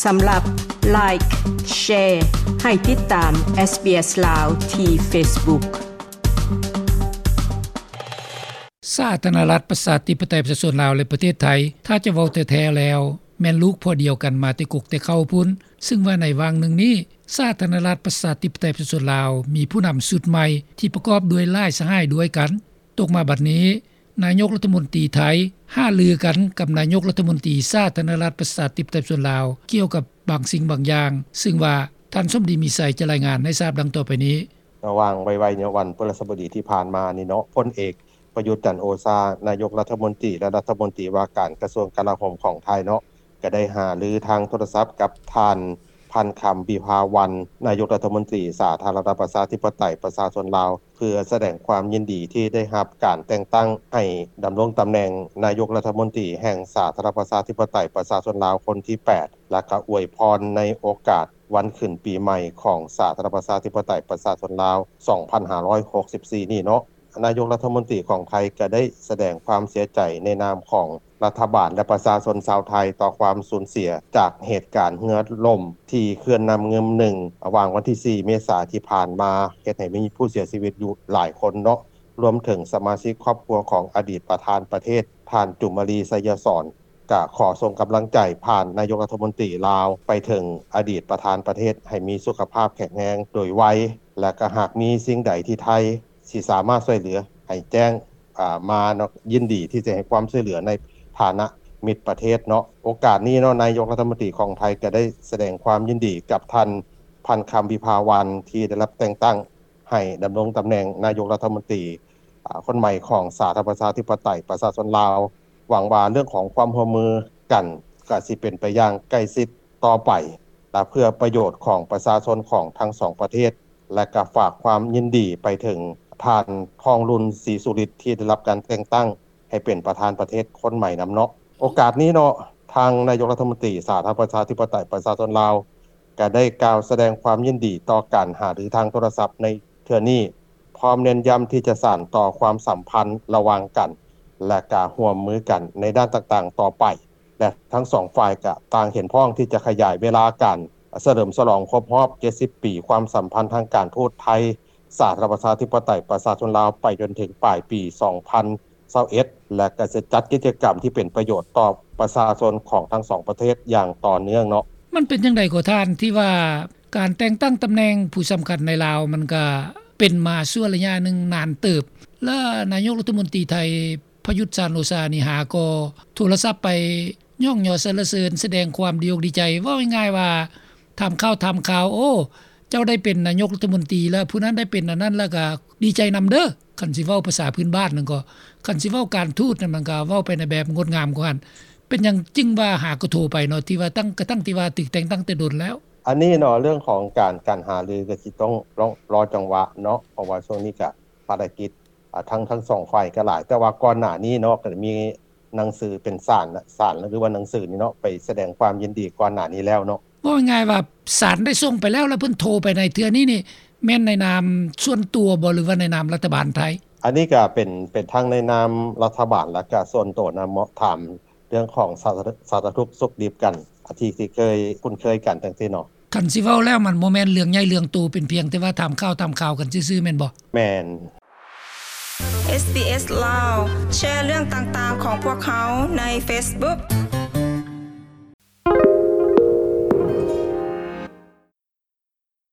ສຳລັບ Like, Share ໃຫ້ຕິດຕາມ SBS ລາວ ທີ່ Facebook. ສາທາລະນະລັດ ປະຊາທິປະໄຕ ປະຊາຊົນລາວ ແລະ ປະເທດໄທ ຖ້າຈະເວົ້າແທ້ໆແລ້ວ ແມ່ນລູກພໍ່ດຽວກັນມາແຕ່ກົກແຕ່ເຄົ້າພຸ້ນ, ຊຶ່ງວ່າໃນຫວ່າງໜຶ່ງນີ້ ສາທາລະນະລັດ ປະຊາທິປະໄຕ ປະຊາຊົນລາວ ມີຜູ້ນຳຊຸດໃໝ່ ທີ່ປະກອບດ້ວຍຫຼາຍສະຫາຍດ້ວຍກັນ. ຕົກມາບັດນີ້ ນາຍົກລັດຖະມົນຕີໄທ ຫາລືກັນກັບນາຍົກລັດຖະມົນຕີ ສາທາລະນະລັດ ປະຊາທິປະໄຕ ປະຊາຊົນລາວ ກ່ຽວກັບບາງສິ່ງບາງຢ່າງ, ຊຶ່ງວ່າ ທ່ານ ສົມດີ ມີໄຊ ຈະລາຍງານໃຫ້ຊາບດັ່ງຕໍ່ໄປນີ້. ລະຫວ່າງໄວໆ ໃນວັນພຶລະຫັດສະບົດດີທີ່ຜ່ານມານີ້ເນາະ, ພົນເອກ ປະຍຸດ ຈັນໂອຊາ ນາຍົກລັດຖະມົນຕີ ແລະ ລັດຖະມົນຕີວ່າການກະຊວງກະລາໂຫມຂອງໄທເນາະ ກໍໄດ້ຫາລືທາງໂທລະສັບກັບທ່ານ ພັນຄຳ ວິພາວັນ ນາຍົກລັດຖະມົນຕີ ສາທາລະນະລັດ ປະຊາທິປະໄຕ ປະຊາຊົນລາວ ເພື່ອສະແດງຄວາມຍິນດີທີ່ໄດ້ຮັບການແຕ່ງຕັ້ງໃຫ້ດຳລົງຕຳແໜ່ງນາຍົກລັດຖະມົນຕີແຫ່ງສາທາລະນະລັດ ປະຊາທິປະໄຕ ປະຊາຊົນລາວ ຄົນທີແປດ ແລະກະອວຍພອນໃນໂອກາດ ວັນຂຶ້ນປີໃໝ່ຂອງສາທາລະນະລັດ ປະຊາທິປະໄຕ ປະຊາຊົນລາວ ສອງພັນຫ້າຮ້ອຍຫົກສິບສີ່ນີ້ເນາະ, ນາຍົກລັດຖະມົນຕີຂອງໄທກໍໄດ້ສະແດງຄວາມເສຍໃຈໃນນາມຂອງລັດຖະບານ ແລະ ປະຊາຊົນຊາວໄທຕໍ່ຄວາມສູນເສຍຈາກເຫດການເຮືອລົ້ມທີ່ເຂື່ອນນ້ຳງື່ມໜຶ່ງ ລະຫວ່າງວັນທີສີ່ ເມສາທີ່ຜ່ານມາ ເຮັດໃຫ້ມີຜູ້ເສຍຊີວິດຢູ່ຫຼາຍຄົນເນາະ, ລວມເຖິງສະມາຊິກຄອບຄົວຂອງອະດີດປະທານປະເທດ ທ່ານ ຈູມມາລີ ໄຊຍະສອນ ກະຂໍສົ່ງກຳລັງໃຈຜ່ານນາຍົກລັດຖະມົນຕີລາວໄປເຖິງອະດີດປະທານປະເທດໃຫ້ມີສຸຂະພາບແຂງແຮງໂດຍໄວ ແລະ ກະຫາກມີສິ່ງໃດທີ່ໄທຊິສາມາດຊ່ວຍເຫຼືອໃຫ້ແຈ້ງ ອາ ມາເນາະ, ຍິນດີທີ່ຈະໃຫ້ຄວາມຊ່ວຍເຫຼືອໃນຖານະມິດປະເທດເນາະ. ໂອກາດນີ້ເນາະ ນາຍົກລັດຖະມົນຕີຂອງໄທກະໄດ້ສະແດງຄວາມຍິນດີກັບທ່ານ ພັນຄຳ ວິພາວັນ ທີ່ໄດ້ຮັບແຕ່ງຕັ້ງໃຫ້ດຳລົງຕຳແໜ່ງນາຍົກລັດຖະມົນຕີ ອາ ຄົນໃໝ່ຂອງສາທາລະນະລັດ ປະຊາທິປະໄຕ ປະຊາຊົນລາວ. ຫວັງວ່າເລື່ອງຂອງຄວາມຮ່ວມມືກັນກະຊິເປັນໄປຢ່າງໃກ້ຊິດຕໍ່ໄປ ແລະ ເພື່ອປະໂຫຍດຂອງປະຊາຊົນຂອງທັງສອງປະເທດ ແລະ ກະຝາກຄວາມຍິນດີໄປເຖິງທ່ານ ທອງລຸນ ສີສຸລິດ ທີ່ໄດ້ຮັບການແຕ່ງຕັ້ງໃຫ້ເປັນປະທານປະເທດຄົນໃໝ່ນຳເນາະ. ໂອກາດນີ້ເນາະ ທາງນາຍົກລັດຖະມົນຕີສາທາລະນະລັດ ປະຊາທິປະໄຕ ປະຊາຊົນລາວ ກະໄດ້ກ່າວສະແດງຄວາມຍິນດີຕໍ່ການຫາລືທາງໂທລະສັບໃນເທື່ອນີ້ ພ້ອມເນັ້ນຢ້ຳທີ່ຈະສານຕໍ່ຄວາມສຳພັນລະຫວ່າງກັນ ແລະ ກະຮ່ວມມືກັນໃນດ້ານຕ່າງໆຕໍ່ໄປ ແລະ ທັງສອງຝ່າຍກະຕ່າງເຫັນພ້ອມທີ່ຈະຂະຫຍາຍເວລາການສະເຫຼີມສະຫຼອງຄົບຮອບເຈັດສິບປີຄວາມສຳພັນທາງການທູດໄທ ສາທາລະນະລັດ ປະຊາທິປະໄຕ ປະຊາຊົນລາວ ໄປຈົນເຖິງປາຍປີສອງພັນຊາວເອັດ ແລະ ກະຈະຈັດກິດຈະກຳທີ່ເປັນປະໂຫຍດຕໍ່ປະຊາຊົນຂອງທັງສອງປະເທດຢ່າງຕໍ່ເນື່ອງເນາະ. ມັນເປັນຈັ່ງໃດກໍທ່ານ ທີ່ວ່າການແຕ່ງຕັ້ງຕຳແໜ່ງຜູ້ສຳຄັນໃນລາວ ມັນກະເປັນມາຊົ່ວໄລຍະໜຶ່ງນານເຕີບ ແລະ ນາຍົກລັດຖະມົນຕີໄທ ປະຍຸດ ຈັນໂອຊາ ນີ້ຫາກໍໂທລະສັບໄປຍ້ອງຍໍສັນລະເສີນ ສະແດງຄວາມດີອົກດີໃຈ. ເວົ້າງ່າຍໆວ່າ ຖາມຂ່າວ ຖາມຂ່າວ ໂອ້ ເຈົ້າໄດ້ເປັນນາຍົກລັດຖະມົນຕີແລ້ວ ຜູ້ນັ້ນໄດ້ເປັນອັນນັ້ນ ແລ້ວກະດີໃຈນຳເດີ. ຄັນຊິເວົ້າພາສາພື້ນບ້ານນັ້ນກໍ ຄັນຊິເວົ້າການທູດນັ້ນ ມັນກະເວົ້າໄປໃນແບບງົດງາມກວ່າຫັ້ນ. ເປັນຫຍັງຈຶ່ງວ່າຫາກໍໂທໄປເນາະ ທີ່ວ່າຕັ້ງ ກະຕັ້ງທີ່ວ່າຖືກແຕ່ງຕັ້ງແຕ່ດົນແລ້ວ? ອັນນີ້ເນາະ ເລື່ອງຂອງການ ການຫາລືກະຊິຕ້ອງລໍ ລໍຈັງຫວະເນາະ ເພາະວ່າຊ່ວງນີ້ກະພາລະກິດ ອາ ທັງ ທັງສອງຝ່າຍກໍຫຼາຍ, ແຕ່ວ່າກ່ອນໜ້ານີ້ເນາະ ກໍໄດ້ມີໜັງສືເປັນສານ ສານ ຫຼືວ່າໜັງສືນີ້ເນາະ ໄປສະແດງຄວາມຍິນດີກ່ອນໜ້ານີ້ແລ້ວເນາະ. ເວົ້າງ່າຍໆວ່າສານໄດ້ສົ່ງໄປແລ້ວ ແລ້ວເພິ່ນໂທໄປໃນເທື່ອນີ້ນີ້ ແມ່ນໃນນາມສ່ວນຕົວບໍ່ ຫຼືວ່າໃນນາມລັດຖະບານໄທ? ອັນນີ້ກໍເປັນ ເປັນທັງໃນນາມລັດຖະບານ ແລ້ວກໍສ່ວນຕົວນຳເນາະ, ຖາມເລື່ອງຂອງສາ ສາລະທຸກສຸກດິບກັນ ອາ ທີ່ ທີ່ເຄີຍຄຸ້ນເຄີຍກັນຈັ່ງຊີ້ເນາະ. ຄັນຊິເວົ້າແລ້ວ ມັນບໍ່ແມ່ນເລື່ອງໃຫຍ່ເລື່ອງໂຕ ເປັນພຽງແຕ່ວ່າຖາມຂ່າວ ຖາມຂ່າວກັນຊື່ໆ ແມ່ນບໍ່? ແມ່ນ. ເອສບີເອສ ລາວ ແຊເລື່ອງຕ່າງໆຂອງພວກເຮົາໃນ Facebook